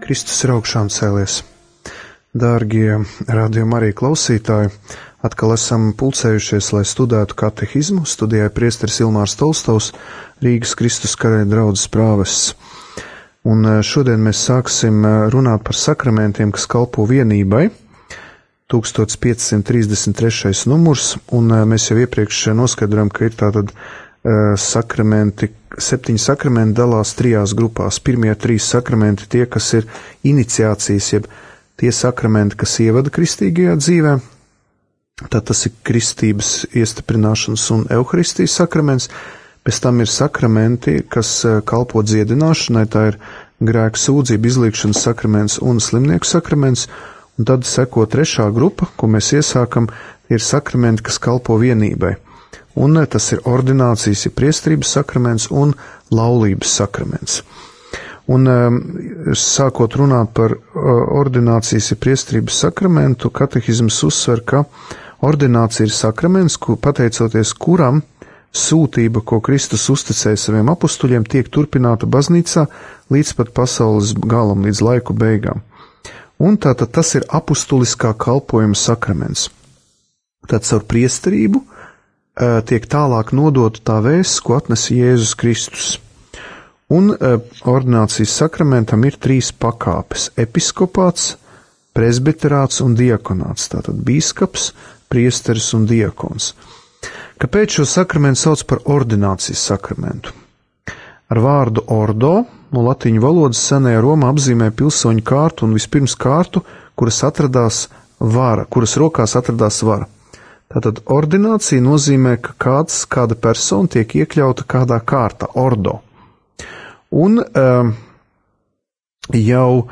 Kristus ir augšām cēlies. Dārgie radījuma arī klausītāji, atkal esam pulcējušies, lai studētu katehizmu. Studijā priesteris Ilmārs Tolstovs, Rīgas Kristus Karaļa draudzes prāvests. Un šodien mēs sāksim runāt par sakramentiem, kas kalpo vienībai. 1533. numurs, un mēs jau iepriekš noskaidrojam, ka ir tātad sakramenti, 7 sakramenti dalās 3 grupās. Pirmie 3 sakramenti tie, kas ir iniciācijas, jeb tie sakramenti, kas ievada kristīgajā dzīvē. Tad tas ir kristības iestiprināšanas un euharistijas sakraments. Pēc tam ir sakramenti, kas kalpo dziedināšanai, tā ir grēku sūdzību izliekšanas sakraments un slimnieku sakraments. Un tad seko 3. grupa, ko mēs iesākam, ir sakramenti, kas kalpo vienībai. Un tas ir ordinācijas, ir priesterības sakraments un laulības sakraments. Un sākot runāt par ordinācijas, ir priesterības sakramentu, katehizms uzsver, ka ordinācija ir sakraments, pateicoties kuram sūtība, ko Kristus uzticēja saviem apustuļiem, tiek turpināta baznīcā līdz pat pasaules galam, līdz laiku beigām. Un tātad tas ir apustuliskā kalpojuma sakraments. Tad caur priesterību tiek tālāk nodota tā vēsts, ko atnesa Jēzus Kristus. Un ordinācijas sakramentam ir 3 pakāpes – episkopāts, presbiterāts un diakonāts, tātad bīskaps, priesteris un diakons. Kāpēc šo sakramentu sauc par ordinācijas sakramentu? Ar vārdu ordo no latīņu valodas senajā Romā apzīmē pilsoņu kārtu un vispirms kārtu, kuras rokās atradās vara. Tātad ordinācija nozīmē, ka kāda persona tiek iekļauta kādā kārtā, ordo. Un jau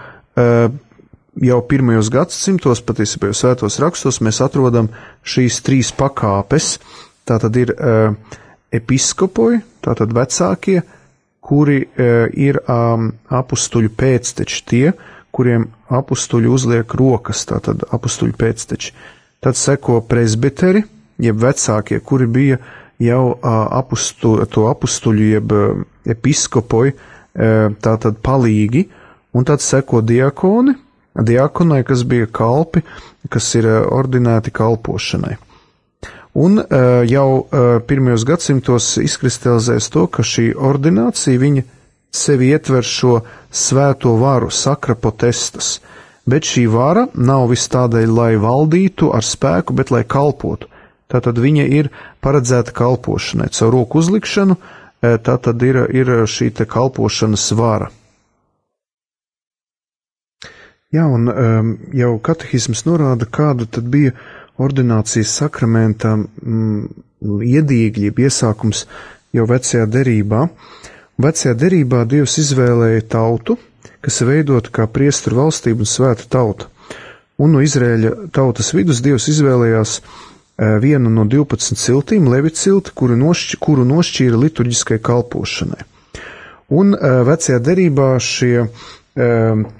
pirmajos gadsimtos, patiesībā jau svētos rakstos, mēs atrodam šīs 3 pakāpes. Tātad ir episkopoji, tātad vecākie, kuri ir apustuļu pēcteči, tie, kuriem apustuļi uzliek rokas, tātad apustuļu pēcteči. Tad seko presbiteri, jeb vecākie, kuri bija jau apustuļu, jeb episkopoji, tātad palīgi, un tad seko diakoni, diakonai, kas bija kalpi, kas ir ordinēti kalpošanai. Un jau pirmajos gadsimtos izkristalizēs to, ka šī ordinācija, viņa sevi ietver šo svēto varu, sacra potestas, bet šī vara nav vis tādēļ, lai valdītu ar spēku, bet lai kalpotu. Tātad viņa ir paredzēta kalpošanai. Caur roku uzlikšanu, tātad ir šī te kalpošanas vara. Jā, un jau katehisms norāda, kāda tad bija ordinācijas sakramenta iedīgļi, iesākums jau vecajā derībā. Vecajā derībā Dievs izvēlēja tautu, kas ir veidota kā priesteru valstība un svēta tauta. Un no Izraēļa tautas vidus Dievs izvēlējās vienu no 12 ciltīm, Levita cilti, kuru nošķīra liturģiskai kalpošanai. Un vecajā derībā šie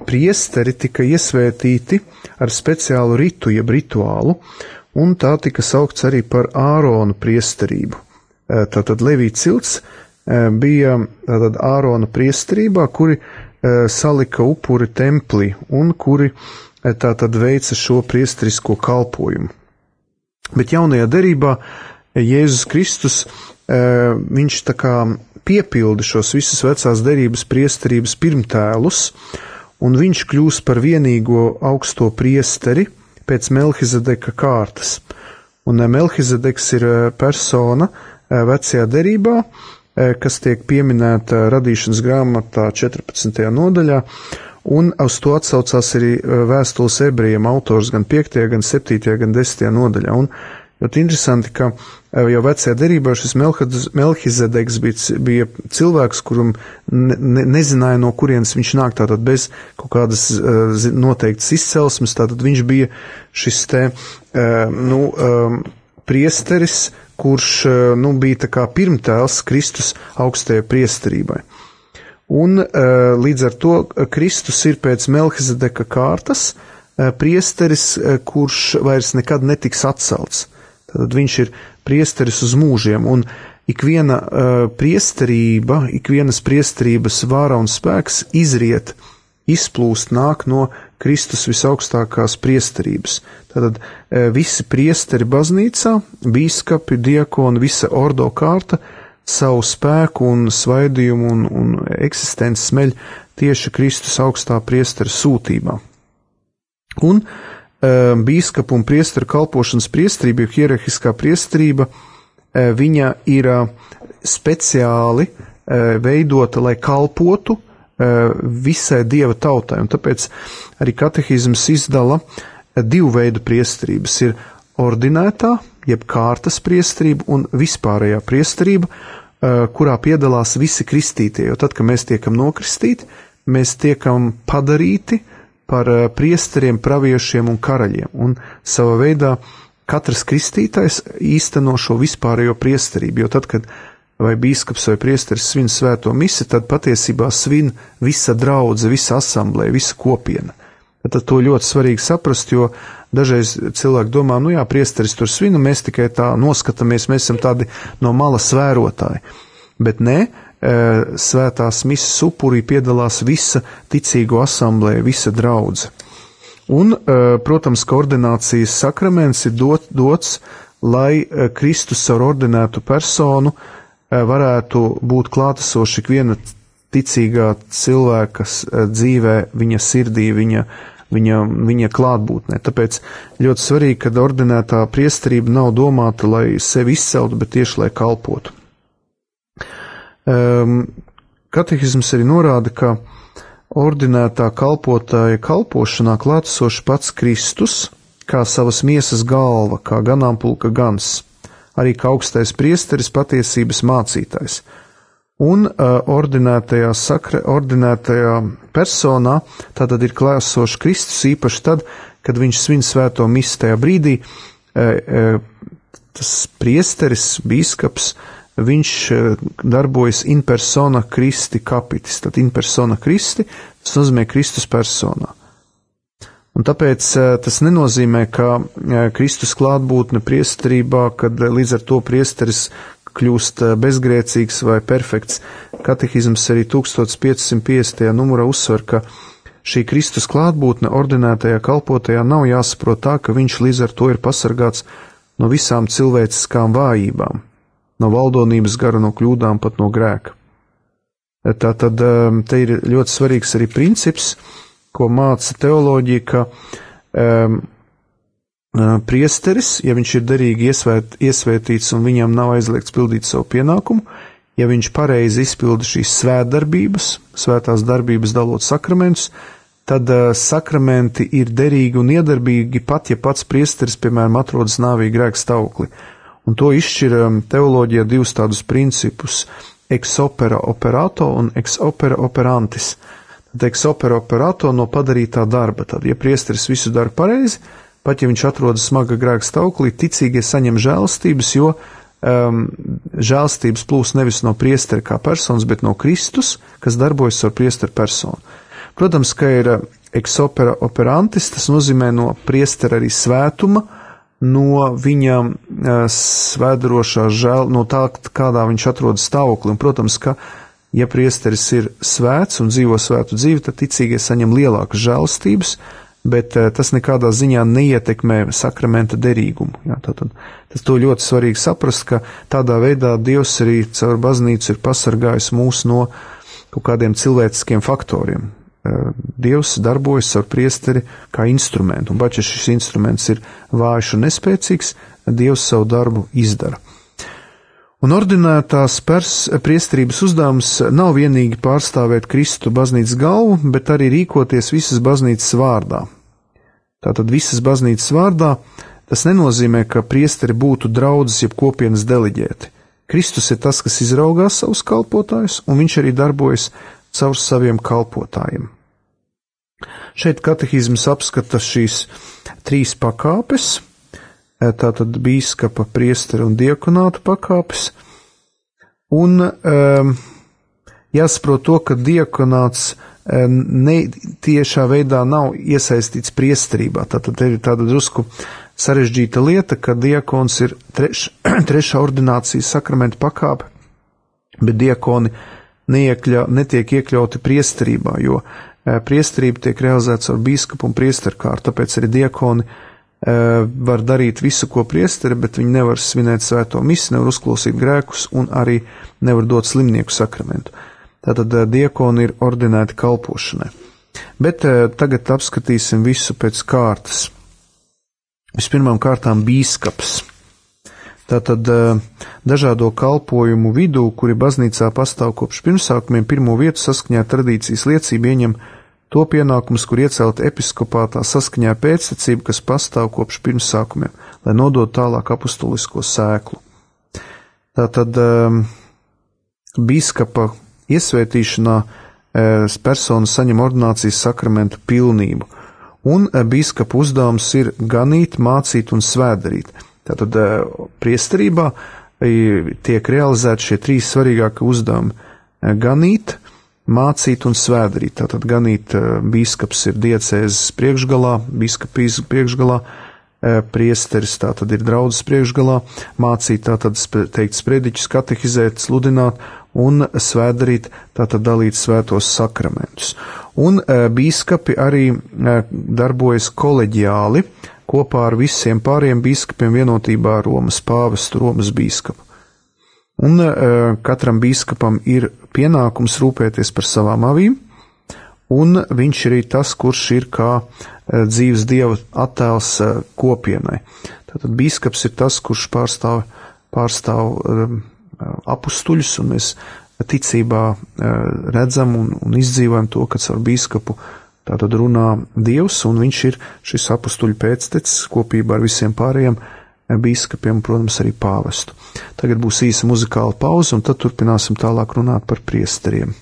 priesteri tika iesvētīti ar speciālu ritu, jeb rituālu, un tā tika saukts arī par Ārona priesterību. Tātad Levita cilts bija tātad Ārona priesterībā, kuri salika upuri templī un kuri tātad veica šo priesterisko kalpojumu. Bet jaunajā derībā Jēzus Kristus, viņš tā kā piepilda šos visus vecās derības priesterības pirmtēlus, un viņš kļūst par vienīgo augsto priesteri pēc Melhizedeka kārtas. Un Melhizedeks ir persona vecajā derībā, kas tiek pieminēta radīšanas grāmatā 14. nodaļā, un uz to atsaucās arī vēstules ebrejiem autors gan 5., gan 7., gan 10. nodaļā. Un ļoti interesanti, ka jau vecajā derībā šis Melhizedeks bija cilvēks, kuram nezināja, no kurienes viņš nāk, tātad bez kaut kādas noteiktas izcelsmes, tātad viņš bija šis priesteris, kurš bija tā kā pirmtēls Kristus augstajai priesterībai. Un līdz ar to Kristus ir pēc Melhizedeka kārtas priesteris, kurš vairs nekad netiks atcelts. Tad viņš ir priesteris uz mūžiem, un ikviena priesterība, ikvienas priesterības vāra un spēks izriet izplūst nāk no Kristus visaugstākās priesterības. Tātad visi priesteri baznīcā, bīskapi, diakoni, visa ordo kārta savu spēku un svaidījumu un eksistenci smeļ tieši Kristus augstā priestera sūtībā. Un bīskapu un priesteru kalpošanas priesterība, hierarhiskā priesterība, viņa ir speciāli veidota, lai kalpotu visai Dieva tautai. Un tāpēc arī katehizms izdala divu veidu priesterības. Ir ordinētā, jeb kārtas priesterība un vispārējā priesterība, kurā piedalās visi kristītie. Jo tad, kad mēs tiekam nokristīti, mēs tiekam padarīti par priesteriem, praviešiem un karaļiem. Un savā veidā katrs kristītais īsteno šo vispārējo priesterību. Jo tad, kad vai bīskaps vai priesteris svin svēto misi, tad patiesībā svin visa draudze, visa asamblē, visa kopiena. Tad to ļoti svarīgi saprast, jo dažreiz cilvēki domā, nu jā, priesteris tur svin, un mēs tikai tā noskatāmies, mēs esam tādi no malas vērotāji. Bet nē, svētās misas upurī piedalās visa ticīgo asamblē, visa draudze. Un, protams, ka ordinācijas sakraments ir dots, lai Kristus ar ordinētu personu varētu būt klātesoši ikviena ticīgā cilvēka dzīvē, viņa sirdī, viņa klātbūtnē. Tāpēc ļoti svarīgi, ka ordinētā priesterība nav domāta, lai sevi izceltu, bet tieši, lai kalpotu. Katehizms arī norāda, ka ordinētā kalpotāja kalpošanā klātesoši pats Kristus, kā savas miesas galva, kā ganāmpulka gans, arī kā augstais priesteris, patiesības mācītājs. Un ordinētajā personā tātad ir klātesošs Kristus īpaši tad, kad viņš svin svēto misi tajā brīdī, tas priesteris, bīskaps, viņš darbojas in persona Christi capitis, tad in persona Christi, tas nozīmē Kristus personā. Un tāpēc tas nenozīmē, ka Kristus klātbūtne priesterībā, kad līdz ar to priesteris kļūst bezgrēcīgs vai perfekts. Katehizms arī 1550. numurā uzsver, ka šī Kristus klātbūtne ordinētajā kalpotajā nav jāsaprot tā, ka viņš līdz ar to ir pasargāts no visām cilvēciskām vājībām, no valdonības gara, no kļūdām, pat no grēka. Tātad te ir ļoti svarīgs arī princips, ko māca teoloģija, ka priesteris, ja viņš ir derīgi iesvētīts un viņam nav aizliegts pildīt savu pienākumu, ja viņš pareizi izpilda šīs svētdarbības, svētās darbības dalot sakramentus, tad sakramenti ir derīgi un iedarbīgi pat, ja pats priesteris, piemēram, atrodas nāvī grēka stāvoklī. Un to izšķir teoloģijā divus tādus principus – ex opera operato un ex opera operantis. Ex opera operato no padarītā darba. Tad, ja priesteris visu dara pareizi, pat ja viņš atrodas smaga grēka stāvoklī, ticīgie saņem žēlstības, jo žēlstības plūst nevis no priestera kā personas, bet no Kristus, kas darbojas ar priesteru personu. Protams, ka ir ex opera operantis, tas nozīmē no priestera arī svētuma, no viņa svēdarošā no tā, kādā viņš atrodas stāvoklī. Un, protams, ka ja priesteris ir svēts un dzīvo svētu dzīvi, tad ticīgie saņem lielākas žēlstības, bet tas nekādā ziņā neietekmē sakramenta derīgumu. Jā, tas to ļoti svarīgi saprast, ka tādā veidā Dievs arī caur baznīcu ir pasargājis mūs no kaut kādiem cilvēciskiem faktoriem. Dievs darbojas ar priesteri kā instrumentu, un pat ja šis instruments ir vājš un nespēcīgs, Dievs savu darbu izdara. Un ordinētās priesterības uzdevums nav vienīgi pārstāvēt Kristu baznīcas galvu, bet arī rīkoties visas baznīcas vārdā. Tātad visas baznīcas vārdā tas nenozīmē, ka priesteri būtu draudzes jeb kopienas deleģēti. Kristus ir tas, kas izraugās savus kalpotājus, un viņš arī darbojas caur saviem kalpotājiem. Šeit katehizms apskata šīs trīs pakāpes, tātad bīskapa, priestera un diakonāta pakāpes, un jāsaprot to, ka diakonāts tiešā veidā nav iesaistīts priesterībā. Tātad ir tāda drusku sarežģīta lieta, ka diakons ir trešā ordinācijas sakramenta pakāpe, bet diakoni netiek iekļauti priesterībā, jo priesterība tiek realizēta ar bīskapu un priesterkārtu, tāpēc arī diakoni var darīt visu, ko priesteri, bet viņi nevar svinēt svēto misi, nevar uzklausīt grēkus un arī nevar dot slimnieku sakramentu. Tātad diakoni ir ordinēti kalpošanai. Bet tagad apskatīsim visu pēc kārtas. Vispirmām kārtām bīskaps. Tātad dažādo kalpojumu vidū, kuri baznīcā pastāv kopš pirmsākumiem, pirmo vietu saskaņā ar tradīcijas liecību ieņem to pienākumus, kur iecelt episkopātā saskaņā ar pēctecību, kas pastāv kopš pirmsākumiem, lai nodot tālāk apustulisko sēklu. Tātad bīskapa iesvētīšanā persona saņem ordinācijas sakramentu pilnību, un bīskapa uzdevums ir ganīt, mācīt un svētdarīt. Tātad priesterībā tiek realizēti šie trīs svarīgākie uzdevumi - ganīt, mācīt un svētdarīt. Tātad ganīt bīskaps ir diecēzes priekšgalā, bīskapijas priekšgalā, priesteris tātad ir draudzes priekšgalā, mācīt tātad teikt sprediķus, katehizēt, sludināt un svētdarīt tātad dalīt svētos sakramentus. Un bīskapi arī darbojas koleģiāli kopā ar visiem pāriem bīskapiem vienotībā ar Romas pāvestu, Romas bīskapu. Un katram bīskapam ir pienākums rūpēties par savām avīm, un viņš ir arī tas, kurš ir kā dzīves Dieva attēls kopienai. Tātad bīskaps ir tas, kurš pārstāv apustuļus, un mēs ticībā redzam un izdzīvojam to, ka caur bīskapu tātad runā Dievs, un viņš ir šis apustuļu pēctecis kopībā ar visiem pārējiem bīskapiem, protams, arī pāvestu. Tagad būs īsa muzikāla pauze, un tad turpināsim tālāk runāt par priesteriem.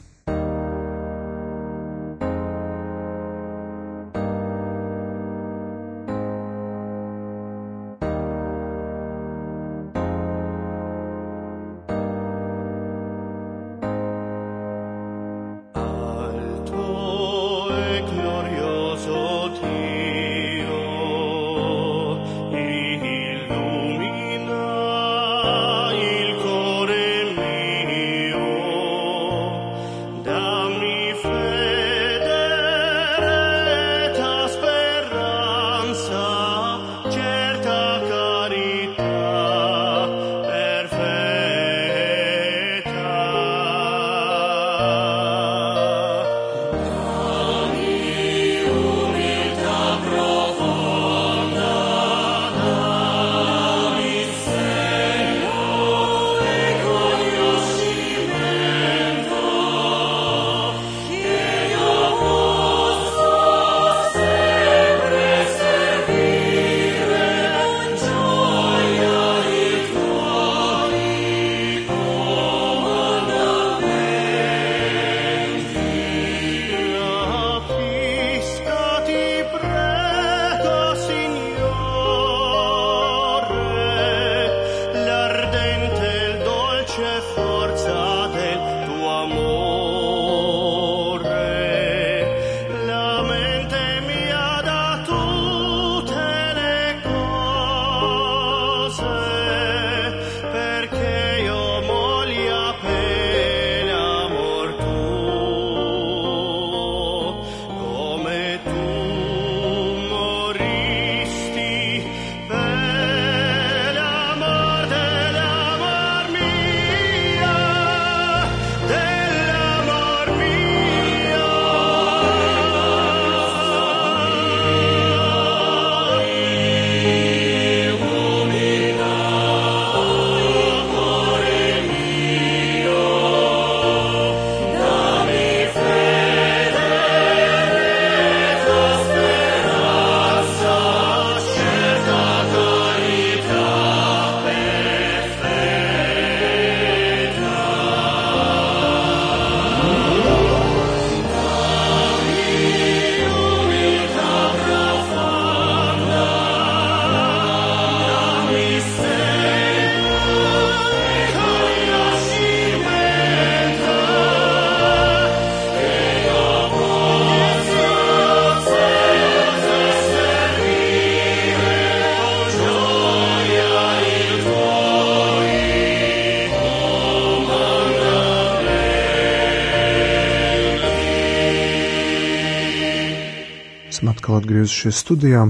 Esam atkal atgriezušies studijā.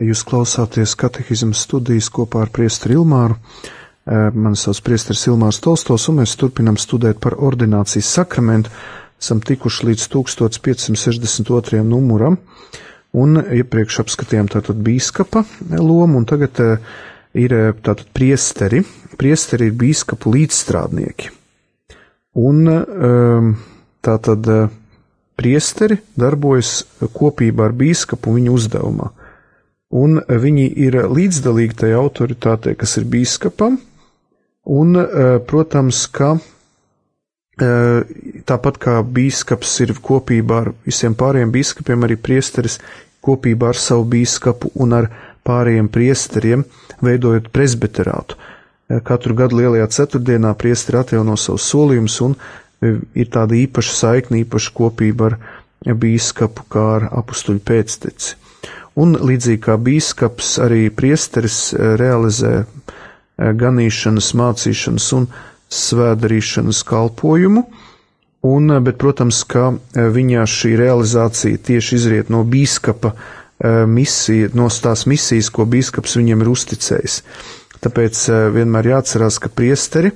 Jūs klausāties katehismas studijas kopā ar priesteri Ilmāru. Mani sauc priesteris Ilmārs Tolstos, un mēs turpinam studēt par ordinācijas sakramentu. Esam tikuši līdz 1562. numuram, un iepriekš apskatījām tātad bīskapa lomu, un tagad ir tātad priesteri. Priesteri ir bīskapu līdzstrādnieki. Un tātad priesteri darbojas kopībā ar bīskapu viņa uzdevumā. Un viņi ir līdzdalīgi tajā autoritātei, kas ir bīskapam, un, protams, ka tāpat kā bīskaps ir kopībā ar visiem pārējiem bīskapiem, arī priesteris kopībā ar savu bīskapu un ar pārējiem priesteriem, veidojot presbiterātu. Katru gadu lielajā ceturtdienā priesteri atjauno savus solījumus, un ir tāda īpaša saikne, īpaša kopība ar bīskapu, kā ar apustuļu pēcteci. Un līdzīgi kā bīskaps, arī priesteris realizē ganīšanas, mācīšanas un svētdarīšanas kalpojumu, bet, protams, ka viņa šī realizācija tieši izriet no bīskapa misija, no tās misijas, ko bīskaps viņiem ir uzticējis. Tāpēc vienmēr jāatcerās, ka priesteri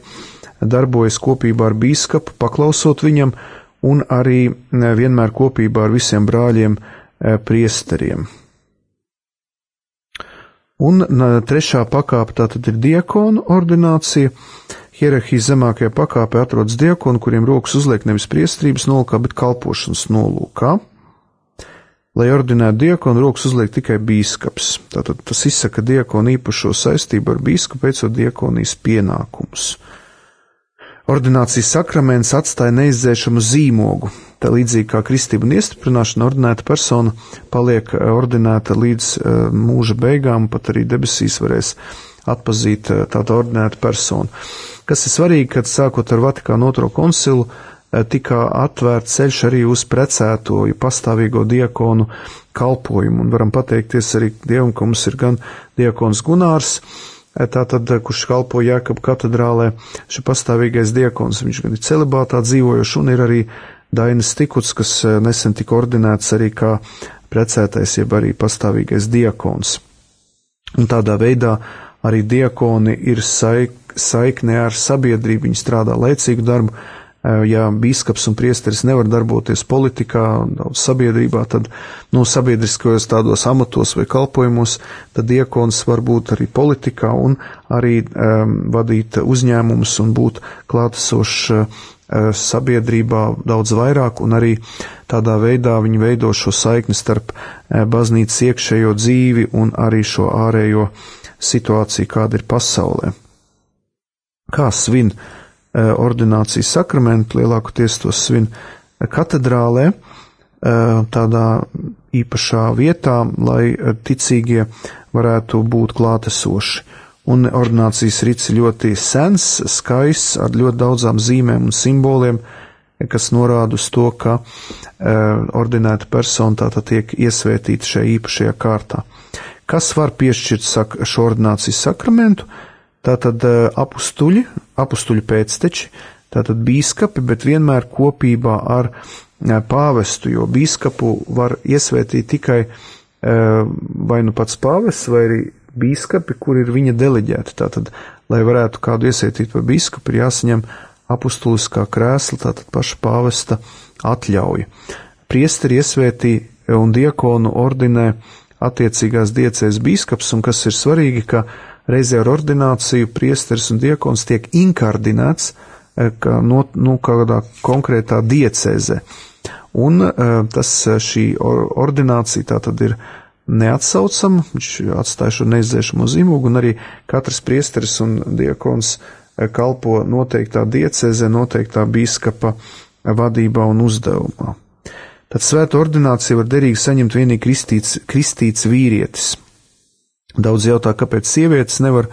darbojas kopībā ar bīskapu, paklausot viņam, un arī vienmēr kopībā ar visiem brāļiem priesteriem. Un trešā pakāpe tātad ir diakonu ordinācija. Hierarhijas zemākajā pakāpē atrodas diakoni, kuriem rokas uzliek nevis priesterības nolūkā, bet kalpošanas nolūkā. Lai ordinētu diakonu, rokas uzliek tikai bīskaps. Tātad tas izsaka diakonu īpašo saistību ar bīskapu, veicot diakonijas pienākumus. Ordinācijas sakraments atstāja neizdzēšamu zīmogu. Tā līdzīgi kā kristība un iestiprināšana, ordinēta persona paliek ordinēta līdz mūža beigām, pat arī debesīs varēs atpazīt tādu ordinētu personu. Kas ir svarīgi, kad sākot ar Vatikāna II koncilu tika atvērts ceļš arī uz precēto, pastāvīgo diakonu kalpojumu, un varam pateikties arī Dievam, ka mums ir gan diakons Gunārs, tātad, kurš kalpo Jēkabu katedrālē, šī pastāvīgais diakons, viņš gan ir celibātā dzīvojošs, un ir arī Dainis Tikuts, kas nesen tika ordinēts arī kā precētais, jeb arī pastāvīgais diakons. Un tādā veidā arī diakoni ir saiknē ar sabiedrību, viņi strādā laicīgu darbu. Ja bīskaps un priesteris nevar darboties politikā, sabiedrībā, tad, sabiedriskajos tādos amatos vai kalpojumos, tad diakons var būt arī politikā un arī vadīt uzņēmumus un būt klātesošs sabiedrībā daudz vairāk, un arī tādā veidā viņi veido šo saikni starp baznīcas iekšējo dzīvi un arī šo ārējo situāciju, kāda ir pasaulē. Kā svin ordinācijas sakramentu? Lielākoties to svin katedrālē, tādā īpašā vietā, lai ticīgie varētu būt klātesoši. Un ordinācijas rits ir ļoti sens, skaists, ar ļoti daudzām zīmēm un simboliem, kas norāda uz to, ka ordinēta persona tātad tiek iesvētīta šajā īpašajā kārtā. Kas var piešķirt šo ordinācijas sakramentu? Tātad apustuļu pēcteči, tātad bīskapi, bet vienmēr kopībā ar pāvestu, jo bīskapu var iesvētīt tikai vai nu pats pāvests, vai arī bīskapi, kur ir viņa deleģēti. Tātad, lai varētu kādu iesvētīt par bīskapu, ir jāsaņem apustuliskā krēsla, tātad paša pāvesta atļauja. Priesteri iesvētī un diakonu ordinē attiecīgās diecēs bīskaps, un kas ir svarīgi, ka reizē ar ordināciju priesteris un diakons tiek inkardinēts kādā konkrētā diecēzē. Un šī ordinācija tātad ir neatsaucama, viņš atstāja šo neizdzēšamo zīmogu, un arī katrs priesteris un diakons kalpo noteiktā diecēzē, noteiktā bīskapa vadībā un uzdevumā. Tad svēta ordinācija var derīgi saņemt vienīgi kristīts vīrietis. Daudz jautā, kāpēc sievietes nevar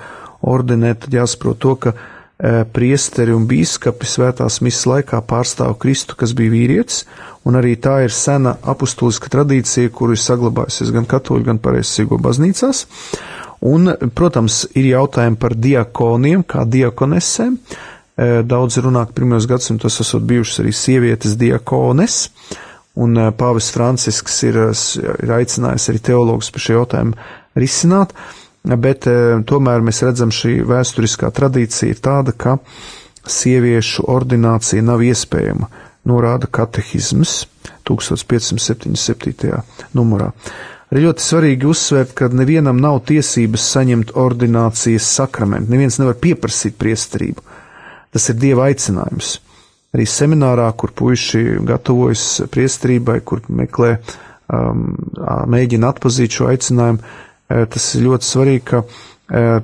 ordinēt, tad jāsaprot to, ka priesteri un bīskapi svētās misas laikā pārstāv Kristu, kas bija vīrietis, un arī tā ir sena apustuliska tradīcija, kuru ir saglabājusies gan katoļu, gan pareizsīgo baznīcās. Un, protams, ir jautājumi par diakoniem, kā diakonesēm. Daudz runā, ka pirmajos gadsimtos esot bijušas arī sievietes diakones, un pāvests Francisks ir aicinājis arī teologus par šo jautājumu risināt, bet tomēr mēs redzam, šī vēsturiskā tradīcija ir tāda, ka sieviešu ordinācija nav iespējama, norāda katehisms 1577. numurā. Arī ļoti svarīgi uzsvērt, ka nevienam nav tiesības saņemt ordinācijas sakramentu. Neviens nevar pieprasīt priesterību. Tas ir Dieva aicinājums. Arī seminārā, kur puiši gatavojas priesterībai, kur meklē, mēģina atpazīt šo aicinājumu, tas ir ļoti svarīgi, ka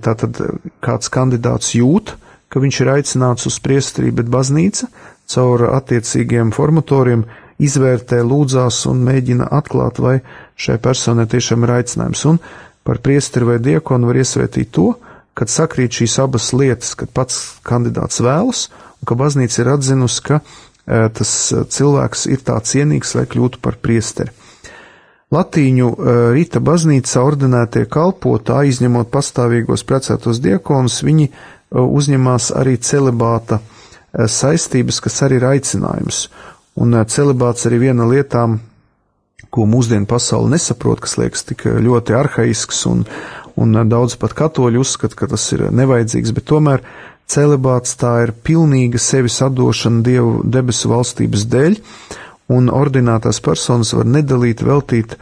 tātad kāds kandidāts jūt, ka viņš ir aicināts uz priesterību, bet baznīca caur attiecīgiem formatoriem izvērtē, lūdzās un mēģina atklāt, vai šai personai tiešām ir aicinājums. Un par priesteri vai diakonu var iesvētīt to, kad sakrīt šīs abas lietas, kad pats kandidāts vēlas, un ka baznīca ir atzinusi, ka tas cilvēks ir tā cienīgs, lai kļūtu par priesteri. Latīņu rīta baznīcā ordinētie kalpotāji, izņemot pastāvīgos precētos diakonus, viņi uzņemās arī celibāta saistības, kas arī ir aicinājums. Un celibāts arī viena lietām, ko mūsdienu pasauli nesaprot, kas liekas tik ļoti arhaisks, un daudz pat katoļu uzskata, ka tas ir nevajadzīgs, bet tomēr celibāts tā ir pilnīga sevis atdošana Dievu debesu valstības dēļ, un ordinētās personas var nedalīt, veltīt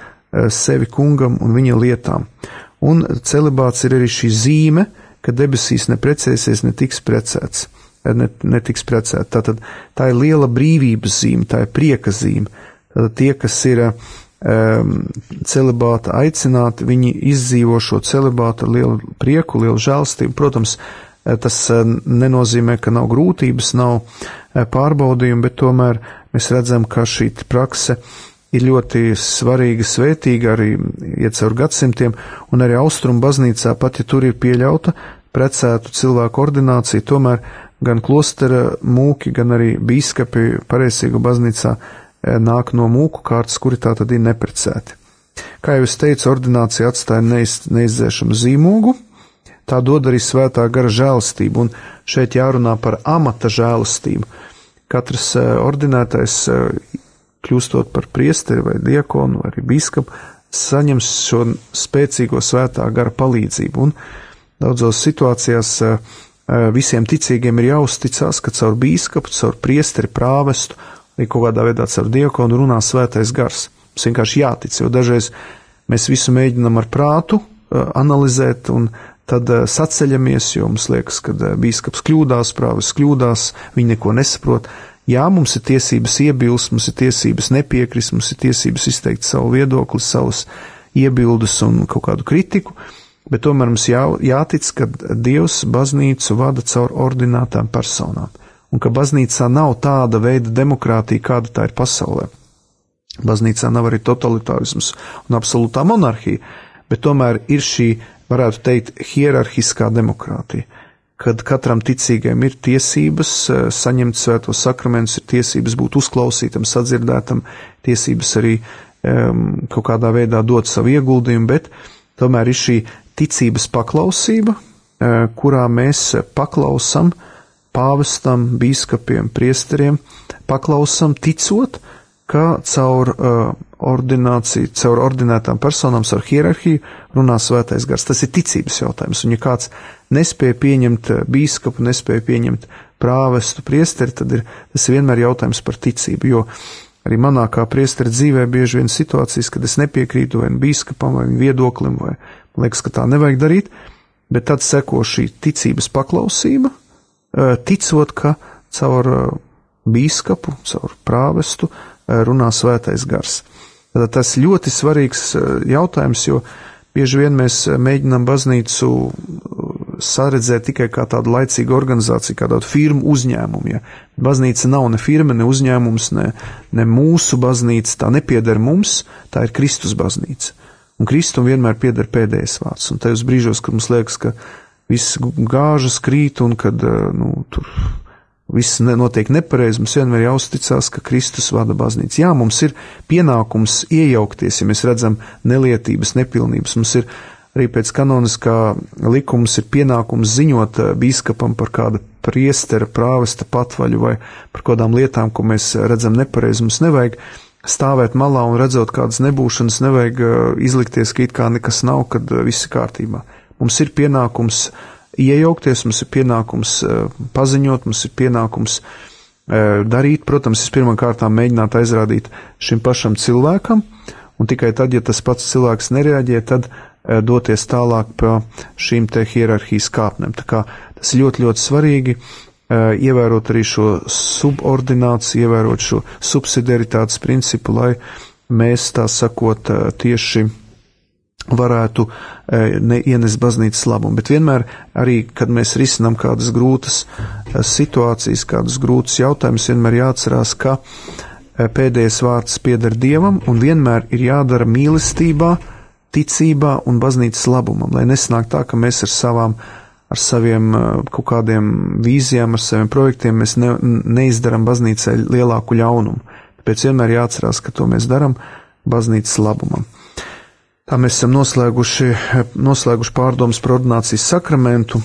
sevi kungam un viņa lietām. Un celibāts ir arī šī zīme, ka debesīs neprecēsies, netiks precēts. Tātad tā ir liela brīvības zīme, tā ir prieka zīme. Tātad tie, kas ir celibāta aicināti, viņi izdzīvo šo celibātu ar lielu prieku, lielu žēlstību. Protams, tas nenozīmē, ka nav grūtības, nav pārbaudījumi, bet tomēr mēs redzam, ka šī prakse ir ļoti svarīga, svētīga, arī iet caur gadsimtiem, un arī Austrumu baznīcā, pat ja tur ir pieļauta precētu cilvēku ordinācija, tomēr gan klostera mūki, gan arī bīskapi pareizīgu baznīcā nāk no mūku kārtas, kuri tā tad ir neprecēti. Kā jau es teicu, ordinācija atstāja neizdzēšamu zīmogu, tā dod arī svētā gara žēlastību, un šeit jārunā par amata žēlastību. Katrs ordinētais, kļūstot par priesteri vai diakonu vai arī bīskapu, saņems šo spēcīgo svētā gara palīdzību, un daudzos situācijās visiem ticīgiem ir jāuzticās, ka caur bīskapu, caur priesteri, prāvestu, vai kaut kādā veidā caur diakonu runā svētais gars. Mums vienkārši jātic, jo dažreiz mēs visu mēģinam ar prātu analizēt, un tad saceļamies, jo mums liekas, ka bīskaps kļūdās, prāvests kļūdās, viņi neko nesaprot. Jā, mums ir tiesības iebilst, mums ir tiesības nepiekrist, mums ir tiesības izteikt savu viedokli, savus iebildes un kaut kādu kritiku, bet tomēr mums jātic, ka Dievs baznīcu vada caur ordinētām personām, un ka baznīcā nav tāda veida demokrātija, kāda tā ir pasaulē. Baznīcā nav arī totalitārisms un absolūtā monarhija, bet tomēr ir šī, varētu teikt, hierarhiskā demokrātija, kad katram ticīgajam ir tiesības saņemt svētos sakramentus, ir tiesības būt uzklausītam, sadzirdētam, tiesības arī kaut kādā veidā dot savu ieguldījumu, bet tomēr ir šī ticības paklausība, kurā mēs paklausam pāvestam, bīskapiem, priesteriem, paklausam ticot, ka caur ordināciju, caur ordinētām personām, caur hierarhiju runā svētais gars. Tas ir ticības jautājums, un ja kāds nespēja pieņemt bīskapu, nespēja pieņemt prāvestu, priesteri, tad tas ir vienmēr jautājums par ticību, jo arī manā kā priestera dzīvē bieži vien situācijas, kad es nepiekrītu vai bīskapam, vai viedoklim, vai man liekas, ka tā nevajag darīt, bet tad seko šī ticības paklausība, ticot, ka caur bīskapu, caur prāvestu runā svētais gars. Tad tas ļoti svarīgs jautājums, jo bieži vien mēs mēģinām baznīcu saredzēt tikai kā tādu laicīgu organizāciju, kā tādu firmu uzņēmumu. Ja? Baznīca nav ne firma, ne uzņēmums, ne mūsu baznīca, tā nepieder mums, tā ir Kristus baznīca. Un Kristum vienmēr pieder pēdējais vārds. Un tajos brīžos, kad mums liekas, ka viss gāžas krīt un kad tur viss notiek nepareizi, mums vienmēr jāuzticās, ka Kristus vada baznīcu. Jā, mums ir pienākums iejaukties, ja mēs redzam nelietības, nepilnības. Mums ir arī pēc kanoniskā likums ir pienākums ziņot bīskapam par kāda priestera, prāvesta patvaļu vai par kādām lietām, ko mēs redzam nepareizi. Mums nevajag stāvēt malā un redzot kādas nebūšanas, nevajag izlikties, ka it kā nekas nav, kad viss ir kārtībā. Mums ir pienākums iejaukties, mums ir pienākums paziņot, mums ir pienākums darīt. Protams, es pirmām kārtām mēģināt aizrādīt šim pašam cilvēkam, un tikai tad, ja tas pats cilvēks nereaģē, tad doties tālāk pa šīm te hierarhijas kāpnēm. Tā kā tas ir ļoti, ļoti svarīgi ievērot arī šo subordināciju, ievērot šo subsidiaritātes principu, lai mēs, tā sakot, tieši varētu ienest baznīcas labumu. Bet vienmēr arī, kad mēs risinām kādas grūtas situācijas, kādus grūtus jautājumus, vienmēr jāatcerās, ka pēdējais vārds pieder Dievam un vienmēr ir jādara mīlestībā, ticībā un baznīcas labumam, lai nesnāk tā, ka mēs ar saviem kaut kādiem vīzijām, ar saviem projektiem mēs neizdaram baznīcai lielāku ļaunumu. Tāpēc vienmēr jāatcerās, ka to mēs daram baznīcas labumam. Tā mēs esam noslēguši pārdomas par ordinācijas sakramentu.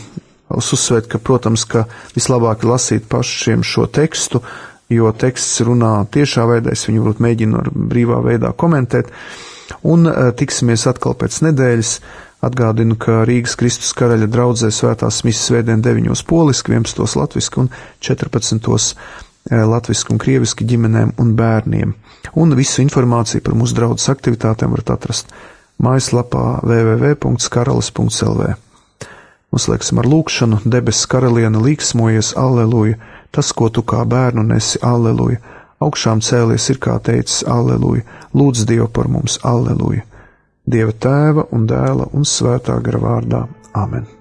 Es uzsvērt, ka, protams, ka vislabāk ir lasīt pašiem šo tekstu, jo teksts runā tiešā veidā, es viņu varbūt mēģinu ar brīvā veidā komentēt. Un tiksimies atkal pēc nedēļas. Atgādinu, ka Rīgas Kristus Karaļa draudzē svētās misas svētdien 9 poliski, 11 latviski un 14 latviski un krieviski ģimenēm un bērniem. Un visu informāciju par mūsu draudzes aktivitātēm varat atrast mājaslapā www.karalis.lv. Noslēgsim ar lūkšanu. Debesu karaliene, līksmojies, alleluja, tas, ko tu kā bērnu nesi, alleluja, augšām cēlies ir, kā teicis, alleluja, lūdz Dievu par mums, alleluja. Dieva Tēva un Dēla un Svētā gara vārdā. Amen.